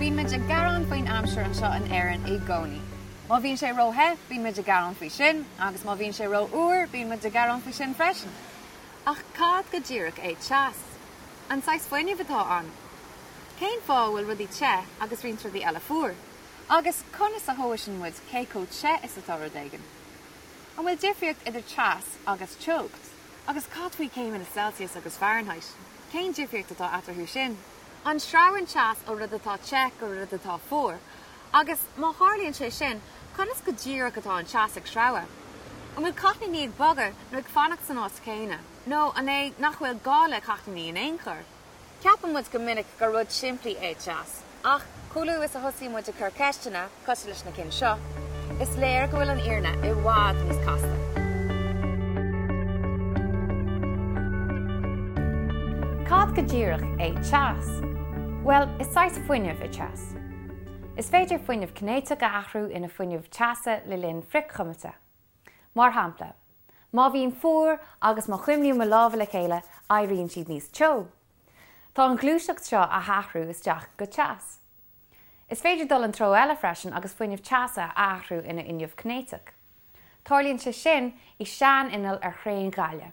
Bíonn muid ag gearán faoin aimsir anseo in Éirinn i gcónaí. Má bhíonn sé ró-the, bíonn muid ag gearán faoi sin, agus má bhíonn sé ró-fhuar, bíonn muid ag gearán faoi sin freisin. Ach cad go díreach é teas? An saghas fuinnimh atá ann? Cén fáth a bhfuil rudaí te agus roinnt rudaí eile fuar? Agus conas a thomhaiseann muid cé chomh te is atá rud éigin? An bhfuil difríocht idir teas agus teocht? Agus cad faoi céimeanna Celsius agus Fahrenheit? Cén difríocht atá eatarthu sin? An sreabhann teas ó rud atá te go rud atá fuar? Agus má tharlaíonn sé sin, conas go díreach atá an teas ag sreabhadh? An bhfuil cáithníní ag bogadh nó ag fanacht san áit chéanna? Nó an é nach bhfuil gá le cáithníní in aon chor? Ceapann muid go minic gur rud simplí é teas, ach chomh luath is a thosaíonn muid ag cur ceisteanna, cosúil leis na cinn seo, is léir go bhfuil an fhírinne i bhfad níos casta. Cad go díreach é teas? Bhuel, is saghas fuinnimh é teas. Is féidir fuinneamh cinéiteach a athrú ina fuinneamh teasa le linn frithchuimilte. Mar shampla, má bhím fuar agus má chuimlím mo lámha le chéile, éiríonn siad níos teo. Tá an ghluaiseacht seo á hathrú isteach go teas. Is féidir dul an treo eile freisin agus fuinneamh teasa a athrú ina fhuinneamh cinéiteach. Tarlaíonn sé sin i sean-inneall ar thraein ghaile.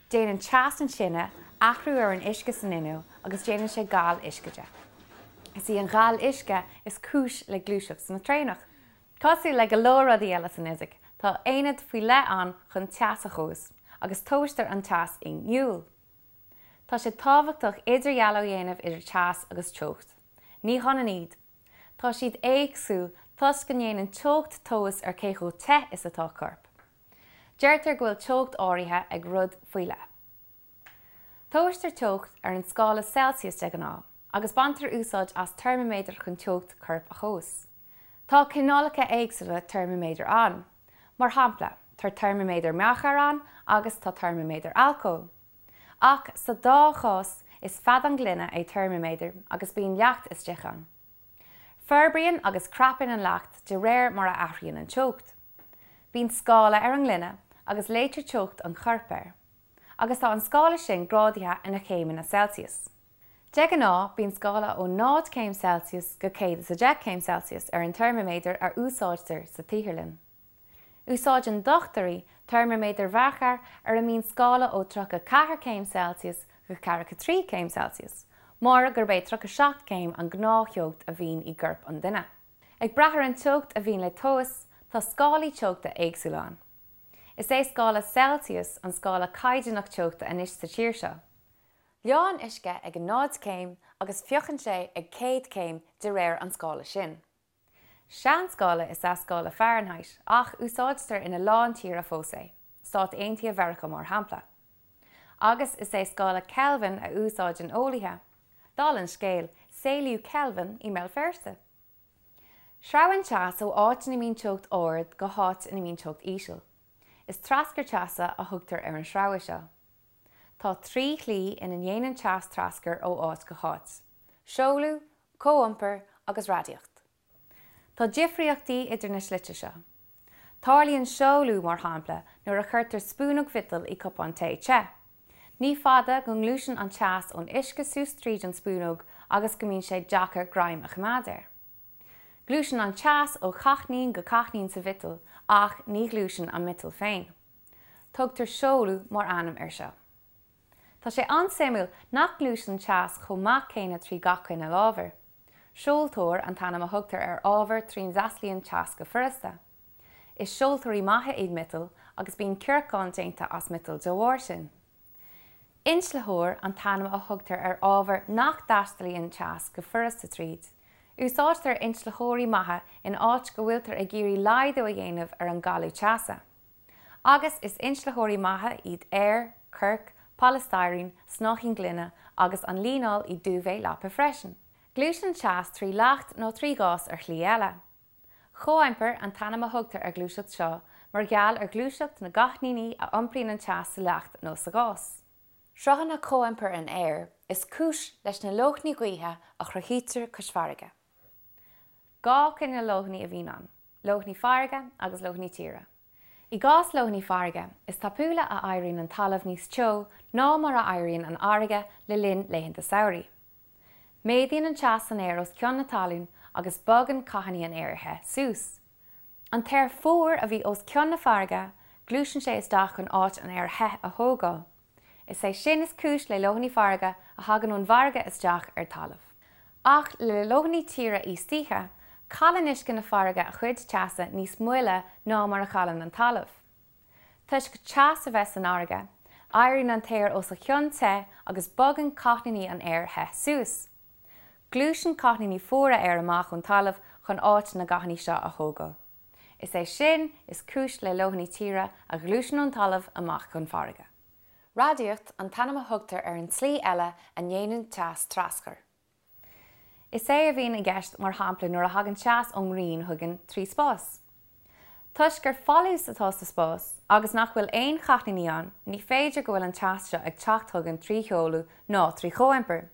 Déanann teas an tine athrú ar an uisce san inneall agus déanann sé gal uisce de. Is í an ghal uisce is cúis le gluaiseacht na traenach. Cosúil le go leor rudaí eile san fhisic, tá aonad faoi leith ann chun teas a thomhas, agus tomhaistear an teas i ngiúil. Tá sé tábhachtach idirdhealú a dhéanamh idir teas agus teocht. Ní hionann iad. Tá siad éagsúil toisc go ndéanann teocht tomhas ar cé chomh te is atá corp. Deirtear go bhfuil teocht áirithe ag rud faoi leith. Tomhaistear teocht ar an scála Celsius de ghnáth, agus baintear úsáid as teirmiméadar chun teocht coirp a thomhas. Tá cineálacha éagsúla teirmiméadar ann. Mar shampla, tá teirmiméadar mearcair ann agus tá teirmiméadar alcóil. Ach sa dá chás, is feadán gloine é teirmiméadar agus bíonn leacht istigh ann. Forbraíonn agus crapann an leacht de réir mar a athraíonn an teocht. Bíonn scála ar an ngloine agus léitear teocht an choirp air. agus tá an scála sin grádaithe ina chéimeanna Celsius. De ghnáth, bíonn scála ó 0 céim Celsius go 110 céim Celsius ar an teirmiméadar a úsáidtear sa tsaotharlann. Úsáideann dochtúirí teirmiméadair mhearcair ar a mbíonn scála ó 34 céim Celsius go 43 céim Celsius, mar gurb é 37 céim an gnáth-theocht a bhíonn i gcorp an duine. Ag brath ar an teocht a bhíonn le tomhas, tá scálaí teochta éagsúla ann. Is é scála Celsius an scála caighdeánach teochta anois sa tír seo. Leánn uisce ag 0 céim agus fiuchann sé ag 100 céim de réir an scála sin. Seanscála is ea scála Fahrenheit ach úsáidtear ina lán tíortha fós é, Stáit Aontaithe Mheiriceá mar shampla. Agus is é scála Kelvin a úsáideann eolaithe. Dála an scéil, saolaíodh Kelvin i mBéal Feirste. Sreabhann teas ó áit ina mbíonn teocht ard go háit ina mbíonn teocht íseal. Is traschur teasa a thugtar ar an sreabhadh seo. Tá trí shlí ina ndéanann teas traschur ó áit go háit, seoladh, comhiompar agus radaíocht. Tá difríochtaí idir na slite seo. Tarlaíonn seoladh, mar shampla, nuair a chuirtear spúnóg mhiotail i cupán tae te. Ní fada go ngluaiseann an teas ón uisce suas tríd an spúnóg agus go mbíonn sé deacair greim a choimeád air. Gluaiseann an teas ó cháithnín go cáithnín sa mhiotal ach ní ghluaiseann an miotal féin. Tugtar seoladh mar ainm air seo. Tá sé an-suimiúil nach ngluaiseann teas chomh maith céanna trí gach cineál ábhair. Seoltóir an t-ainm a thugtar ar ábhar trína dtaistealaíonn teas go furasta. Is seoltóirí maithe iad miotail agus bíonn cearcáin déanta as miotal de bharr sin. Inslitheoir an t-ainm a thugtar ar ábhar nach dtaistealaíonn teas go furasta tríd. Úsáidtear inslitheoirí maithe in áit go bhfuiltear ag iarraidh laghdú a dhéanamh ar an gcailleadh teasa. Agus is inslitheoirí maithe iad aer, corc, polystyrene, snáithín gloine agus an líneáil i duvet leapa freisin. Gluaiseann teas trí leacht nó trí ghás ar shlí eile. Comhiompar an t-ainm a thugtar ar ghluaiseacht seo mar gheall ar ghluaiseacht na gcáithníní a iompraíonn an teas sa leacht nó sa ghás. Sruthanna comhiompair an aeir is cúis leis na leoithní gaoithe a chruthaítear cois farraige. Dhá chineál leoithní a bhíonn ann, leoithní farraige agus leoithní tíre. I gcás leoithní farraige, is tapúla a éiríonn an talamh níos teo ná mar a éiríonn an fharraige le linn laethanta samhraidh. Méadaíonn an teas san aer os cionn na talún agus bogann cáithníní an aeir the suas. An t-aer fuar a bhí os cionn na farraige, gluaiseann sé isteach chun áit an aeir the a thógáil. Is é sin is cúis le leoithní farraige a thagann ón bhfarraige isteach ar talamh. Ach le leoithní tíre íostoíche, cailleann uisce na farraige a chuid teasa níos moille ná mar a chailleann an talamh. Toisc teas a bheith san fharraige, éiríonn an t-aer os a chionn te agus bogann cáithníní an aeir the suas. Gluaiseann cáithníní fuara aeir amach ón talamh chun áit na gcáithníní seo a thógáil. Is é sin is cúis le leoithní tíre a ghluaiseann ón talamh amach chun farraige. Radaíocht an t-ainm a thugtar ar an tslí eile a ndéanann teas traschur. Is é a bhíonn i gceist mar shampla nuair a thagann teas ón ngrian chugainn trí spás. Toisc gur folús atá sa spás agus nach bhfuil aon cháithníní ann, ní féidir go bhfuil an teas seo ag teacht chugainn trí sheoladh ná trí chomhiompar.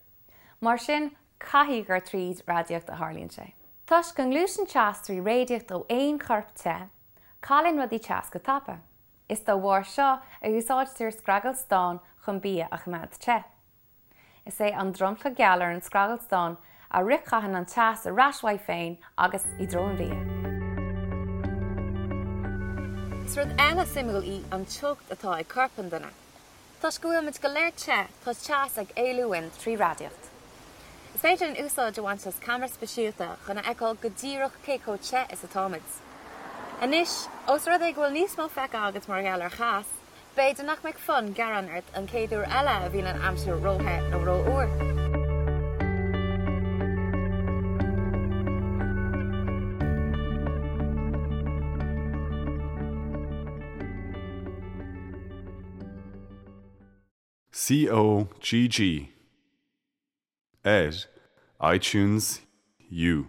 Mar sin, caithfidh gur tríd radaíocht a tharlaíonn sé. Toisc go ngluaiseann teas trí radaíocht ó aon chorp te, cailleann rudaí teas go tapa. Is dá bharr seo a úsáidtear scragall stáin chun bia a choimeád te. Is é an dromchla geal ar an scragall stáin a fhrithchaitheann an teas ar ais uaidh féin agus i dtreo an bhia. Is rud eile suimiúil í an teocht atá ag corp an duine. Toisc go bhfuil muid go léir te, tá teas ag éalú uainn trí radaíocht. Is féidir linn úsáid a bhaint as ceamara speisialta chun a fheiceáil go díreach cé chomh te is atáimid. Anois, ós rud é go bhfuil níos mó feicthe agat mar gheall ar theas, B'fhéidir nach mbeidh fonn gearáin ort an chéad uair eile a bhíonn an aimsir róthe nó rófhuar. COGG ar iTunes U.